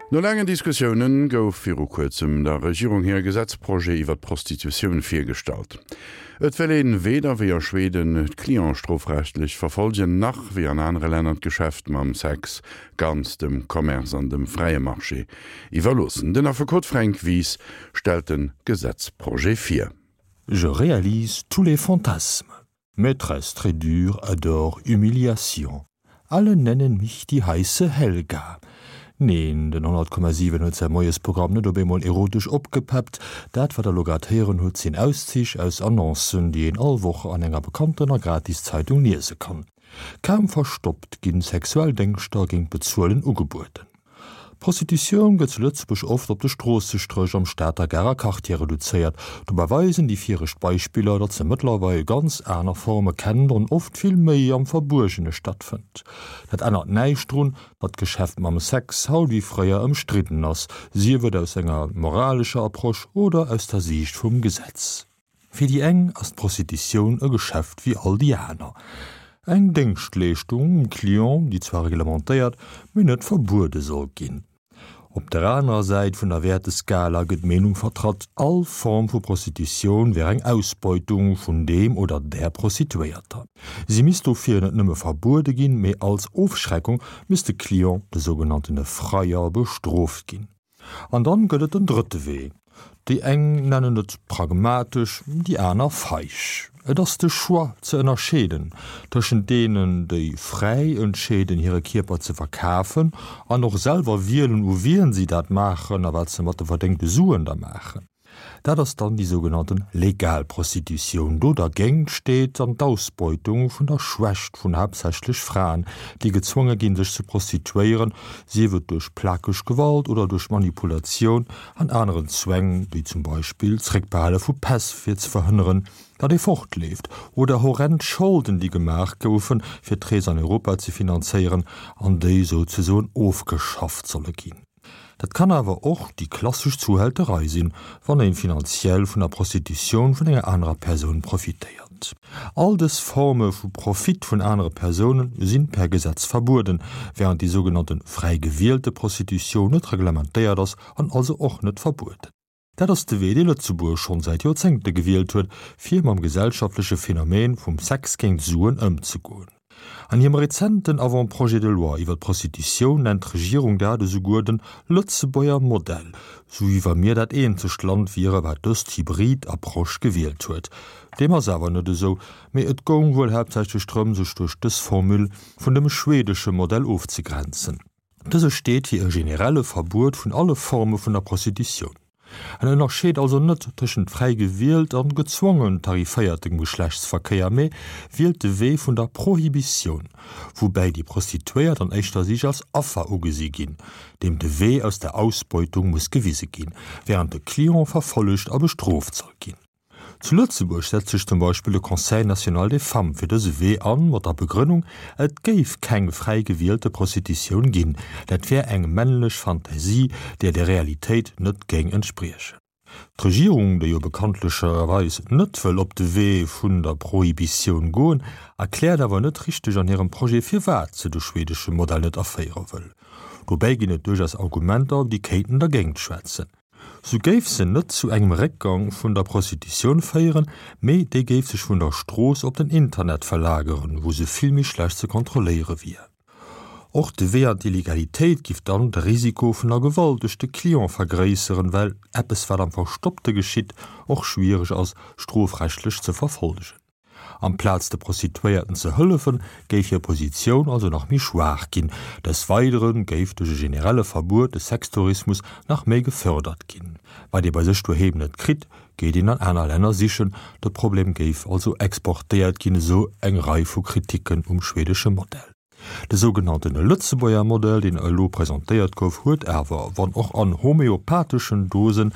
No laangen Diskussiounen gouf viru kuerzem der Regierung hire Gesetzprojet iwwer d'Prostitutioun virgestallt. Et wëll een weder wéi a Schweden d'Cliente strofrechtlech verfolgen, nach wéi an anere Länner d'Geschäft mam Sex ganz dem Commerce an dem fräie Marché iwwerloossen. Den Affekot Fränk Wies stellt de Gesetzprojet vir. Je réalise tous les fantasmes. Maîtresse très dure adore Humiliation. Alle nennen mich die heiße Helga. Neen, den 100,7 huet säi Moiesprogramm net op eemol erotesch opgepeppt. Dat, wat der lo grad héieren hutt, sinn Auszich aus Annoncen, déi een all Woch an enger bekanntener Gratiszeitung liese kann. Kaum verstoppt ginn sexuell Déngschter géint Bezuelen ugebueden. D'Prostitutioun gëtt zu Lëtzebuerg oft op de Stroossestréch am Stater Garer Quartier reduzéiert. Dobäi weisen déi viregt Beispiller, datt se mëttlerweil ganz aner Forme kennt an oft vill méi am Verbuergene stattfënnt. Dat ännert näischt drun, datt d'Geschäft mam Sex haut wéi fréier ëmstridden ass, sief et aus enger moralescher Approche oder aus der Siicht vum Gesetz. Fir déi eng ass d'Prostitutioun e Geschäft wéi all déi aner. Eng Déngschtleeschtung um Client, déi zwar reglementéiert, mee net verbuede soll ginn. Op der anerer Säit vun der Wäerteskala gëtt d'Meenung vertratt, all Form vu Prostitutioun wär eng Ausbeutung vun deem oder där Prostituéierter. Si misst dofir net nëmme verbuede ginn, mee als Ofschreckung misst de Client, de sougenanntene Freier, bestrooft ginn. An dann gëtt et den drëtte Wee. Déi eng nennen et pragmatesch, déi aner feig. Et ass de Choix ze ënnerscheeden tëschent deenen, déi fräi entscheeden hire Kierper ze verkafen an och selwer wielen u wien si dat maachen a wat se mat de verdéngte Suen da maachen. Dat ass dann déi sougenannten legal Prostitutioun. Do dergéint steet dann d'Ausbeutung vun der Schwächt vun haaptsächlech Fraen, déi gezwonge ginn, sech ze prostituéieren, sief et duerch plakeg Gewalt oder duerch Manipulatioun an aneren Zwäng, wéi zum Beispill d'Zréckbehale vu Päss fir ze verhënneren, datt ee fortleeft, oder horrend Scholden, déi gemaach goufen, fir d'Rees an Europa ze finanzéieren an déi souzesoen ofgeschafft solle ginn. Dat kann awer och déi klassesch Zuhälterei sinn, wann een finanziell vun der Prostitutioun vun enger anerer Persoun profitéiert. All dës Forme vu Profit vun anere Persoune sinn per Gesetz verbueden, während déi sougenannte fräi gewielte Prostitutioun net reglementéiert ass an also och net verbueden. Dat ass de Wee, dee Lëtzebuerg schonn säit Joerzéngte gewielt huet, fir mam gesellschaftleche Phänomen vum Sex géint Suen ëmzegoen. An hirem rezenten Avant-projet de loi iwwer d'Prostitutioun nennt d'Regierung dat esouguer den Lëtzebuerger Modell, sou wéi wa mir dat eenzegt Land wiere wat dëst hybrid Approche gewielt huet. Deem ass awer net esou, mee et goung wuel haaptsächlech drëm, sech duerch dës Formule vun dem schwedesche Modell ofzegrenzen. Dëse steet fir e generelle Verbuet vun alle Forme vun der Prostitutioun. En ënnerscheet also net tëschent fräi gewielt an gezwongen tariféiertem Geschlechtsverkéier, mee wielt de Wee vun der Prohibitioun, woubäi déi Prostituéiert an éischter Sich als Affer ugesi ginn, deem de Wee aus der Ausbeutung muss gewise ginn, wärend de Client verfollegt a bestrooft soll ginn. Zu Lëtzebuerg setzt sech zum Beispill de Conseil national des femmes fir dëse Wee an, mat der Begrënnung, et géif keng fräi gewielte Prostitutioun ginn, dat wär eng männlech Fantasie, déi der Realitéit net géing entspriechen. D'Regierung, déi jo bekanntlecherweis net wëll op de Wee vun der Prohibitioun goen, erkläert awer net richteg an hirem Projet, firwat se de schwedesche Modell net aféiere wëll. Dobäi ginn et duerchaus Argumenter, déi kéinten dergéint schwätzen. Sou géif se net zu engem Réckgang vun der Prostitutioun féieren, mee déi géif sech vun der Strooss op den Internet verlageren, wou se vill méi schlecht ze kontrolléiere wier. Och de Wee an d'Illegalitéit giff dann de Risiko vun der Gewalt duerch de Client vergréisseren, well eppes wat am Verstoppte geschitt och schwiereg ass strofrechtlech ze verfollegen. Amplaz de Prostituéierten ze hëllefen, géif hir Positioun also nach méi schwaach ginn. Des Weidere géif duerch e generelle Verbuet de Sextourismus nach méi gefërdert ginn. Wat ee bei sech doheem net kritt, geet een an aner Länner sichen. De Problem géif also exportéiert ginn, esou eng Rei vu Kriticken um schwedesche Modell. De sougenannten Lëtzebuerger Modell, deen elo presentéiert gouf, huet awer, wann och an homeopatheschen Dosen,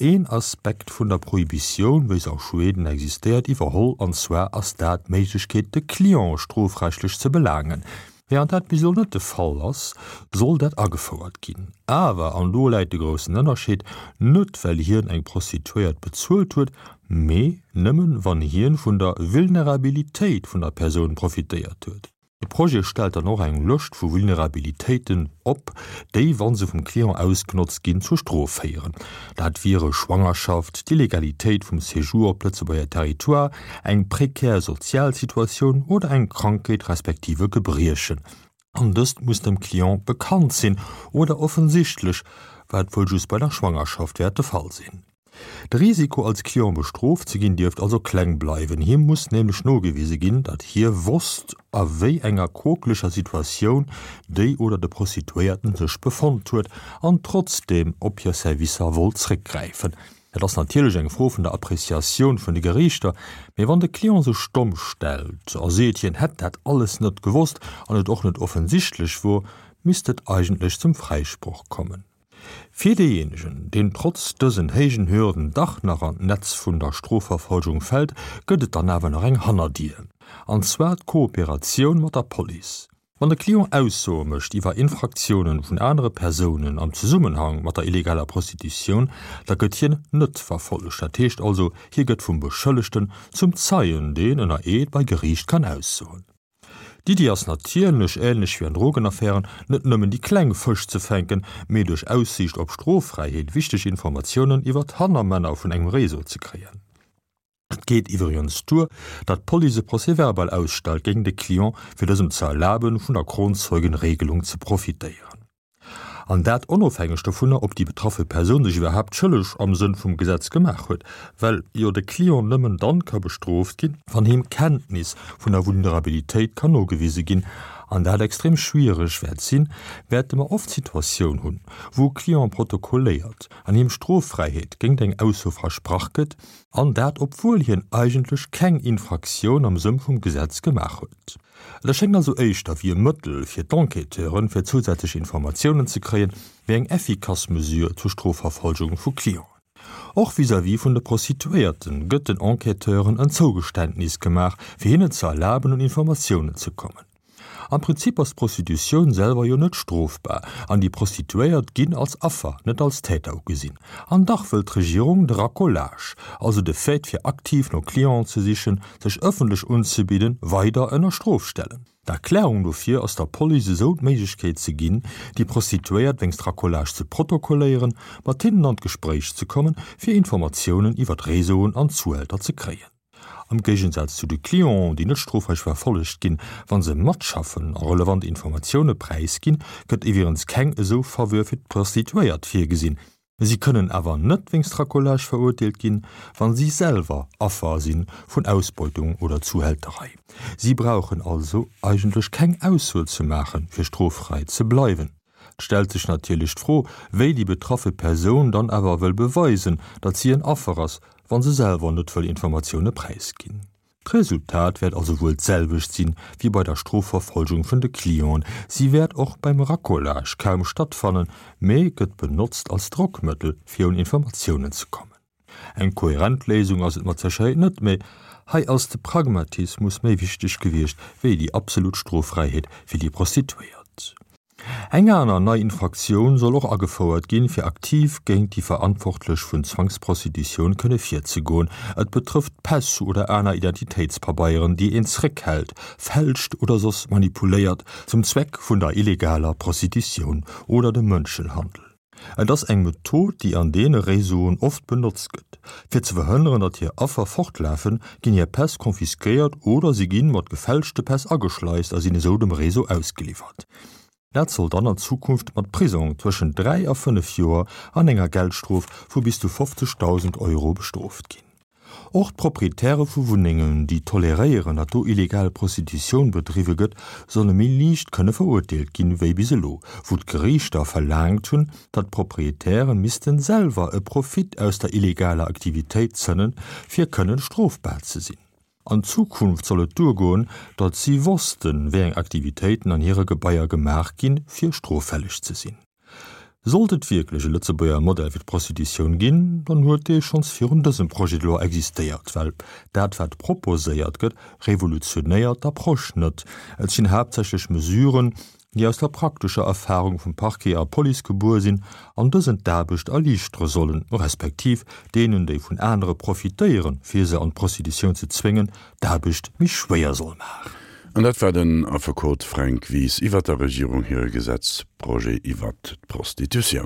een Aspekt vun der Prohibitioun, wéi se a Schweden existéiert, iwwerholl, an zwar ass dat d'Méiglechkeet, de Client strofrechtlech ze belaangen. Während dat bis elo net de Fall ass, soll dat agefouert ginn. Awer, an do läit de groussen Ënnerscheed, net well hien eng Prostituéiert bezuelt huet, mee nëmmen, wann hien vun der Vulnerabilitéit vun der Persoun profitéiert huet. De Projet stellt dann och eng Lëscht vu Vulnerabilitéiten op, déi, wa se vum Client ausgenotzt ginn, zur Strof féieren. Dat wiere Schwangerschaft, d'Illegalitéit vum Séjour op Lëtzebuerger Territoire, eng prekär sozial Situatioun oder eng Krankheet respektiv e Gebriechen. An dëst muss dem Client bekannt sinn oder offensichtlech, wat wuel just bei der Schwangerschaft wäert de Fall sinn. De Risiko als Client bestrooft ze ginn dierft also kleng bleiwen. Him muss nämlech nogewise ginn, datt hie wosst a wéi enger quokeleger Situatioun déi oder de Prostituéierten sech befonnt huet an trotzdeem op hir Servicer wollt zréckgräifen. Dat ass natierlech eng Fro vun der Appreciatioun vun de Geriichter, mee wann de Client sech domm stellt a seet hien hätt dat alles net gewosst an et och net offensichtlech wor, misst et eigentlech zum Fräisproch kommen. Fir deejéinegen, deen trotz dësen héijen Hürden dach nach an d'Netz vun der Strofverfolgung fält, gëtt et dann awer nach eng Hannerdier, an zwar d'Kooperatioun mat der Police. Wann de Client Aussoe mécht iwwer Infraktiounen vun anere Persounen am Zesummenhang mat der illegaler Prostitutioun, da gëtt hien net verfollegt. Dat heescht also, hie gëtt vum Beschëllegten zum Zeien, deen ënner Eed bei Geriicht kann aussoen. D'Iddi ass natierlech, änlech wéi an Drogenaffären, net nëmmen déi kleng Fësch ze fänken, mee duerch Aussiicht op Stroffräiheet wichteg Informatiounen iwwer d'Hannermänner vun engem Réseau ze kréien. Et geet iwwregens duer, datt d'Police e Procès-verbal ausstellt géint e Client, fir dësem ze erlaben, vun der Kronzeugenregelung ze profitéieren. An dat onofhängeg dovunner, ob déi betraffe Persoun sech iwwerhaapt schëlleg am Sënn vum Gesetz gemaach huet, well jo de Client nëmmen dann ka bestrooft ginn, wann him Kenntnis vun der Vulnerabilitéit kann nogewise ginn, an dat extrem schwiereg wäert sinn, wäerte mer oft d'Situatioun hunn, wou e Client protokolléiert an him Stroffräiheet géint eng Ausso versprach gëtt, an dat obwuel hien eigentlech keng Infraktioun am Sënn vum Gesetz gemaach huet. Et erschéngt also éischter wéi e Mëttel fir d'Enquêteuren, fir zousätzlech Informatiounen ze kréien, wéi eng effikass Mesure zur Strofverfolgung vu Clienten. Och vis-à-vis vun de Prostituéierte gëtt den Enquêteuren en Zougeständnis gemaach, fir hinnen ze erlaben, un Informatiounen ze kommen. Am Prinzip ass d'Prostitutioun selwer jo net strofbar an déi Prostituéiert ginn als Affer, net als Täter ugesinn. An dach wëll d'Regierung de Racolage, also de Fait fir aktiv no Clienten ze sichen, sech ëffentlech unzebidden, weider ënner Strof stellen. D'Erklärung dofir ass der Police esou d'Méiglechkeet ze ginn, déi Prostituéiert wéinst Racolage ze protokolléieren, mat hinnen an d'Gespréich ze kommen, fir Informatiounen iwwer d'Réseauen an d'Zuhälter ze kréien. Am Géigensaz zu de Clienten, déi net strofrecht verfollegt ginn, wa se matschaffen a relevant Informatioune präisginn, gëtt iwwregens keng esou Faveur fir d'Prostituéiert virgesinn. Si kënnen awer net wéinst Racolage verurteelt ginn, wa si selwer Affer si vun Ausbeutung oder Zuhälterei. Si brauchen also eigentlech keng Ausso ze maachen, fir stroffräi ze bleiwen. Et stellt sech natierlech d'Fro, wéi déi betraffe Persoun dann awer wëll beweisen, datt si en Affer ass, wa se selwer net wëll Informatioune präisginn. D'Resultat wäert also wuel d'selwecht sinn, wéi bei der Strofverfolgung vun de Clienten, si wäert och beim Racolage kaum stattfannen, mee gëtt benotzt als Drockmëttel, fir un Informatiounen ze kommen. Eng kohärent Léisung ass et mat Sécherheet net, mee hei ass de Pragmatismus méi wichteg gewiescht, wéi déi absolut Stroffräiheet fir déi Prostituéiert. Eng aner nei Infraktioun soll och agefouert ginn, fir aktiv géint déi Verantwortlech vun Zwangsprostitutioun kënne virzegoen. Et betrëfft Päss oder aner Identitéitspabeieren, déi een zréckhält, fälscht oder soss manipuléiert, zum Zweck vun der illegaler Prostitutioun oder dem Mënschenhandel. Et ass eng Method, déi an deene Réseauen oft benotzt gëtt. Fir ze verhënneren, datt hir Affer fortlafen, ginn hir Päss confisquéiert oder si ginn mat gefälschte Päss ageschleist a sinn esou dem Réseau ausgeliwwert. Dat soll dann an Zukunft mat Prisong tëschent 3 a 5 Joer an enger Geldstrof vu bis zu 50.000 Euro bestrooft ginn. Och d'Proprietäre vu Wunnengen, déi toleréieren, datt do illegal Prostitutioun bedriwwe gëtt, solle méi liicht kënne verurteelt ginn, wéi bis elo, wou d'Geriichter verlaangt hunn, datt d'Proprietäre missten selwer e Profit aus der illegaler Aktivitéit zënnen, fir kënnen strofbar ze sinn. An Zukunft soll et duergoen, datt si wossten, wéi eng Aktivitéiten an hire Gebaier gemaach ginn, fir stroffälleg ze sinn. Sollt et wierklech e Lëtzebuerger Modell fir d'Prostitutioun ginn, dann huet dee schonns virun dësem Projet de loi existéiert, well dat wat proposéiert gëtt, revolutionéiert d'Approche net. Et sinn haaptsächlech Mesuren, déi aus der praktescher Erfahrung vum Parquet a Police gebuer sinn an dësen d'Aarbecht erliichtere sollen, respektiv deenen, déi vun anere profitéieren, fir se an d'Prostitutioun ze zwéngen, d'Aarbecht méi schwéier soll maachen. An dat war den Affekot Fränk Wies iwwert der Regierung hire Gesetzprojet iwwert d'Prostitutioun.